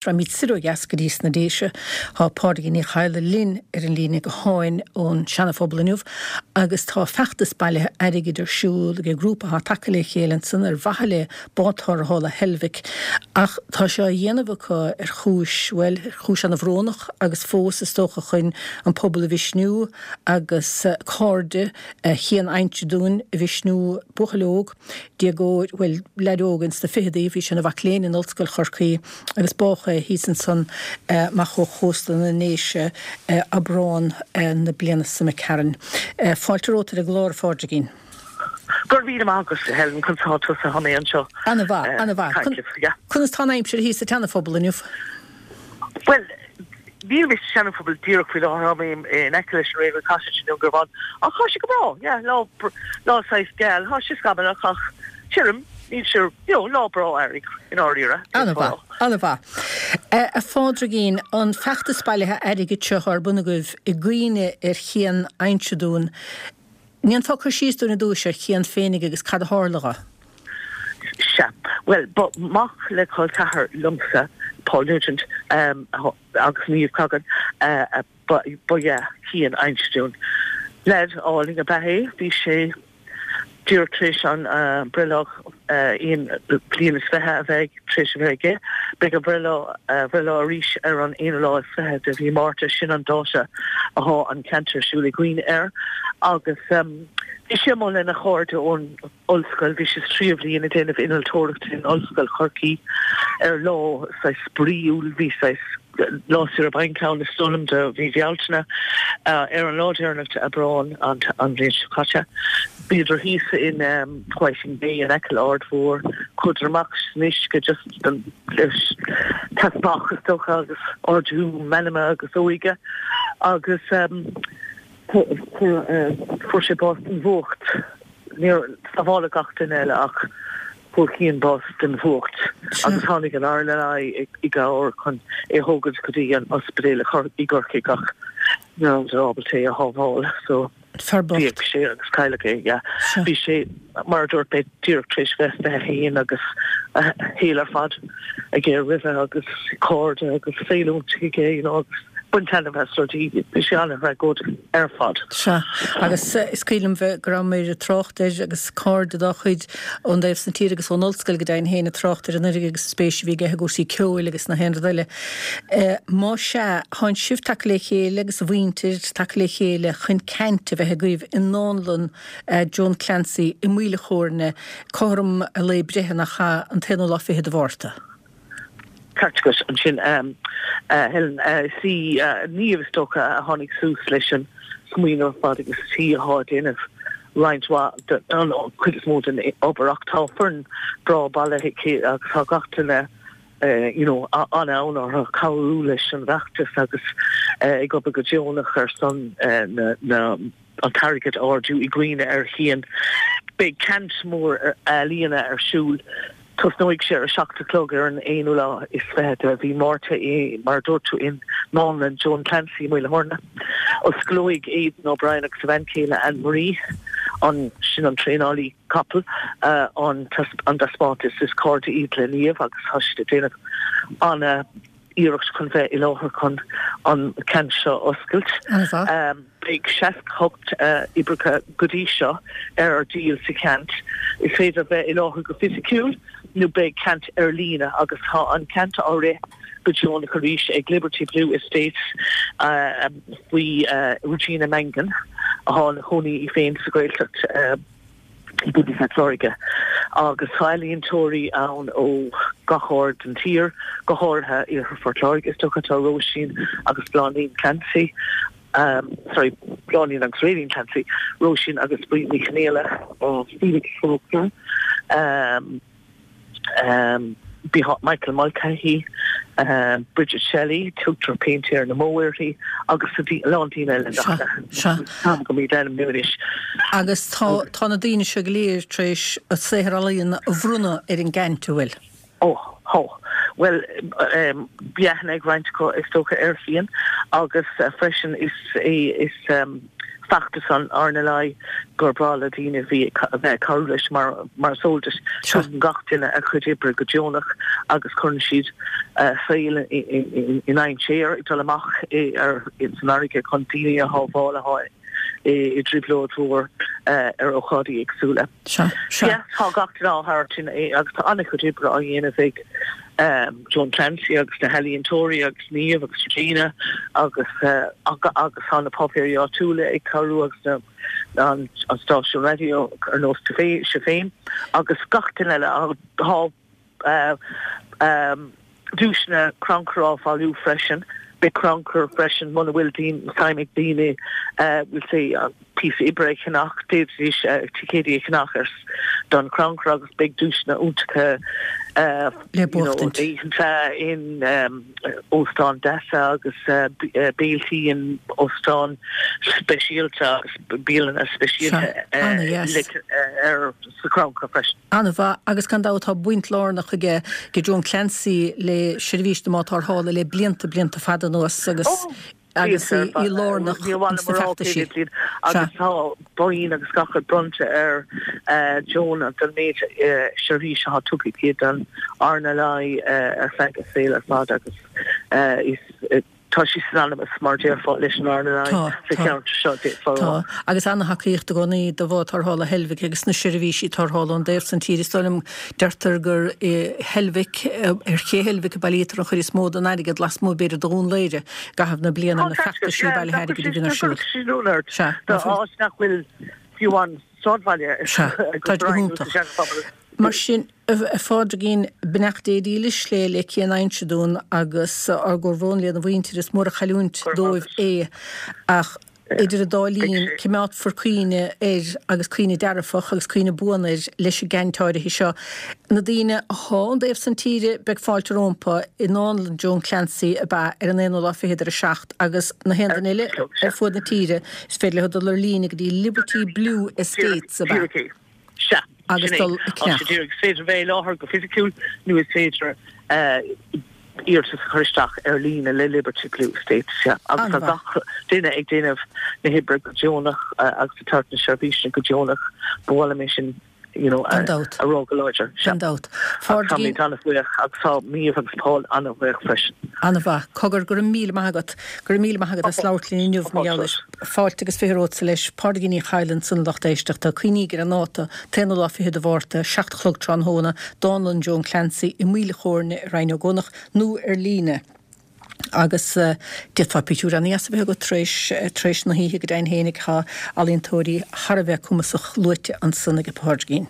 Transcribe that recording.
Raghaimid soir ó dheas go dtí sna Déise. Tá Pádraigín Ní Chadhla linn ar an líne gutháin ón Seana-Phobal inniu agus tá feachtas bailithe airgid ar siúl ag grúpa atá tagtha le chéile ansan ar mhaithe le bád tarrthála Heilbhic ach tá sé á dhéanamh acu ar chúis, bhuel, ar chúis ana-bhrónach agus fós is dócha chun an pobal a mhisniú agus cairde Chian Fheinseadúin a mhisniú, buachaill óg. déagóir, bhuel, leaid óg ins na ficheadaí, bhí sé ina mhac léinn in Ollscoil Chorcaí agus bádh é thíos ansan amach ó chósta na nDéise Aibreán na bliana seo imigh tharainn. Fáilte romhat ar an gclár, a Phádraigín. Go raibh míle maith agat, a Helen, conas tá tusa? Tá mé anseo. Ana-mhaith, ana-mhaith. Conas tá an aimsir thíos sa tSeana-Phobal inniu? Bhuel, níl mé sa Seana-Phobal díreach faoi láthair, tá mé in aice leis an Railway Cottage i nDún Garbhán, ach tá sé go breá, yeah, lá, lá saghas geal, tá sé scamallach ach tirim, níl sé, you know, lá breá earraigh, i ndáiríre. Ana-mhaith, ana-mhaith. A Phádraigín, an feachtas bailithe airgid seo ar bun agaibh i gcuimhne ar Chian Fheinseadúin, An ndéanfá cur síos dúinn ar dtúis ar Chian féinig agus cad a tharla dho? Sea. Bhuel, ba mac le col ceathar liomsa, Paul Nugent, agus Niamh Cogan, ba ea Cian Fheinseadúin. Leaid álainn ab ea é. Bhí sé díreach tar éis an breithlá aon bliain is fiche a bheith tar éis a bheith aige. Beidh a bhreithlá bhreithlá arís ar an aonú lá is fiche de mhí Márta, sin an dáta athá an ceant ar siúl i gcuimhne air. Agus bhí sé amuigh lena chairde ón ollscoil, bhí sé sa tríú bhliain ag déanamh innealtóireachta in Ollscoil Chorcaí ar lá saghas spraíúil, bhí saghas lá saoire bainc ann is dóigh liom do mhí Bhealtaine. Ar an lá deireanach d'Aibreán an bhliain seo caite, bhíodar thíos in Whiting Bay in aice le Aird Mhór, chuadar amach san uisce just don teasbach is dócha agus ardú meanma agus óige agus fuair sé bás den bhfuacht. Níor sábháladh gach duine eile ach fuair Cian bás den bhfuacht agus tháinig an RNLI i gcabhair chun é a thógaint go dtí an ospidéal i gCorcaigh ach ní rabhadar ábalta é a shábháil so Fear bocht. d'éag sé agus cailleadh é, yeah. Bhí sé, mar a dúirt mé, díreach tar éis bheith 21 agus a shaol ar fad aige roimhe agus cairde agus saol iontach aige, you know, agus baint taitneamh as rudaí. Bhí sé an-thragóideach ar fad. Sea, agus is cuimhin liom bheith, go rabhamar ag trácht air agus cairde dá chuid ón dtaobh san tír agus ón ollscoil go deimhin féin ag trácht ar an oiread agus an spéis a bhí aige i gcúrsaí ceoil agus nach aon rud eile. Má sea, thánn sibh tagtha le chéile agus a mhuintir tagtha le chéile chun ceant a bheith agaibh i nDánlann Joan Clancy i Maoil a' Chóirne cothrom a lae breithe nach ea, an t-aonú lá fichead de Mhárta. Ceart agat ansin, a Helen. Is í Niamh, is dócha, a tháinig suas leis an smaoineamh ar fad agus is í atá ag déanamh roinnt mhaith den chuid is mó den obair ach tá foireann breá bailithe aici agus tá gach duine you know an-fhonn orthu cabhrú leis an bhfeachtas agus ag obair go deonach ar son na na an t-airgead a ardú i gcuimhne ar Chian. Beidh ceant mór ealaíona ar siúl. Tosnóidh sé ar a 7 a chlog ar an aonú lá is fiche de mhí Márta i, mar a dúirt tú, i nDánlann Joan Clancy i Maoil a' Chóirne. Osclóidh Aidan O'Brien agus a bhean chéile Anne Marie, an, sin an traenálaí capall, an taispeántas. Is cairde iad le Niamh agus tá siad ag déanamh ana iarracht chun bheith i láthair chun an ceant seo a oscailt. Beidh 68 oibreacha go dtí seo ar díol sa cheant. Is féidir bheith i láthair go fisiciúil nó beidh ceant ar líne agus tá an ceant á rith go deonach arís ag Liberty Blue Estates faoi Regina Mangan atá ina cónaí í féin sa Ghaeltacht. i gContae Phort Láirge agus tá ealaíontóirí ann ó gach aird den tír, go háirithe Iarthar Phort Láirge is dócha. Tá Róisín agus Bláithín Clancy, sorry, Bláithín agus Raylene Clancy, Róisín agus Bríd Ní Chonghaile, Felix Faulkner, Michael Mulcahy, Bridget Shelley, tugtar Péintéir na mBó uirthi, agus a lán daoine eile nach táim go míad ainmniú anois. Agus tá tá na daoine seo go léir tar éis a saothar ealaíona a bhronnadh ar an gceant, an bhfuil? Ó, tá. Bhuel, bhí aithne ag roinnt acu is dócha ar Chian agus freisin is é is. Feachtas an RNLI gur breá le daoine a bhí a bheith ag cabhrú leis mar mar is eol duit tugann gach duine a chuid oibre go deonach agus cuireann siad a saol i ndainséar ag dul amach ar san fharraige chun daoine a shábháil atá i dtrioblóid mhór ar ócáidí éagsúla. Sea, sea. Tá gach duine á thabhairt agus tá an-chuid oibre á dhéanamh ag Joan Clancy agus na healaíontóirí agus Niamh agus Regina agus agus tá na páipéirí áitiúla ag cabhrú agus na an stáisiún raidió ar nós sibh féin agus gach duine eile. Tá duaiseanna crannchuir á bhailiú freisin. Beidh crannchur freisin muna bhfuil suim ag daoine we'll say píosa oibre a cheannach, d'fhéadfaidís ticéidí a cheannach ar don chrannchur agus beidh duaiseanna iontacha le buachtaint. Oícheanta in óstáin deasa agus béiltí in óstáin speisialta agus bialanna speisialta ar sa chrannchur freisin. An-mhaith, agus gan dabht tá baint lárnach aige Joan Clancy le seirbhís na mbád tarrthála le blianta, blianta fada anuas agus agus í lárnach ins na feachtaisí. Agus tá boinn agus gach rud bronnta ar Joan don méid seirbhís atá tugtha aici don RNLI ar feadh a saoil ar fad agus is Tá sí synonymous, mar déarfá, leis an RNLI sa cheantar seo, d'fhéadfá a rá. Tá, agus ana-thacaíocht i gcónaí do bhád tarrthála Heilbhic agus na seirbhísí tarrthála ón dtaobh san tíre. Is dóigh liom, deirtear gur i Heilbhic, ar ché Heilbhic a bailítear an chuid is mó den airgead lasmuigh b'fhéidir de Dhún Laoghaire i gcaitheamh na bliana ar na feachtaisí bailithe airgid a bhíonn ar siúl. Sea, áit nach bhfuil fiú amháin sráidbhaile Sea, tá go hiontach. Mar sin, a Phádraigín, beannacht Dé dílis le le Cian Uinseann agus ár gcomhbhrón lena mhuintir, is mór an chailliúint dóibh é ach idir an dá linn coimeádfar cuimhne air agus cuimhne dearfach agus cuimhne buan air leis an gceannt áirithe seo. Na daoine athá ón dtaobh san tíre beidh fáilte rómpa i nDánlann Joan Clancy ab ea ar an aonú lá fichead ar a 7 agus na haon duine eile ar fuaid na tíre is féidir leo dul ar líne go dtí Liberty Blue Estates ab ea? Sea, agus sin é. dul ag Tá sé ceannach. díreach, is féidir bheith i láthair go fisiciúil nó is féidir iarratas a chur isteach ar líne le Liberty Blue Estates, sea. Agus tá An-mhaith. gach duine ag déanamh na hoibre go deonach agus ag tabhairt na seirbhíse go deonach. Ba mhaith liom é sin you know, Gan dabht. a rá go láidir. Gan dabht. Agus táimid an-bhuíoch agus tá Niamh agus Paul an-bhuíoch freisin. An-mhaith. Cogar, go raibh míle maith agat. Go raibh míle maith agat as labhairt linn inniu mar gheall air. Fáilte agus 20 romhatsa leis. Pádraigín Ní Chadhla ansan a lucht éisteachta. Cuimhnígí ar an ndáta, t-aonú lá fichead de Mhárta, 7 a chlog tráthnóna, Dánlann Joan Clancy i Maoil a' Chóirne i Rinn Ó gCuanach nó ar líne. Agus d'fhéadfá pictiúr ana-dheas a bheith agat tar éis, tar éis na hoíche go deimhin fhéinig. Tá ealaíontóirí thar a bheith cumasach luaite ansan ag Pádraigín.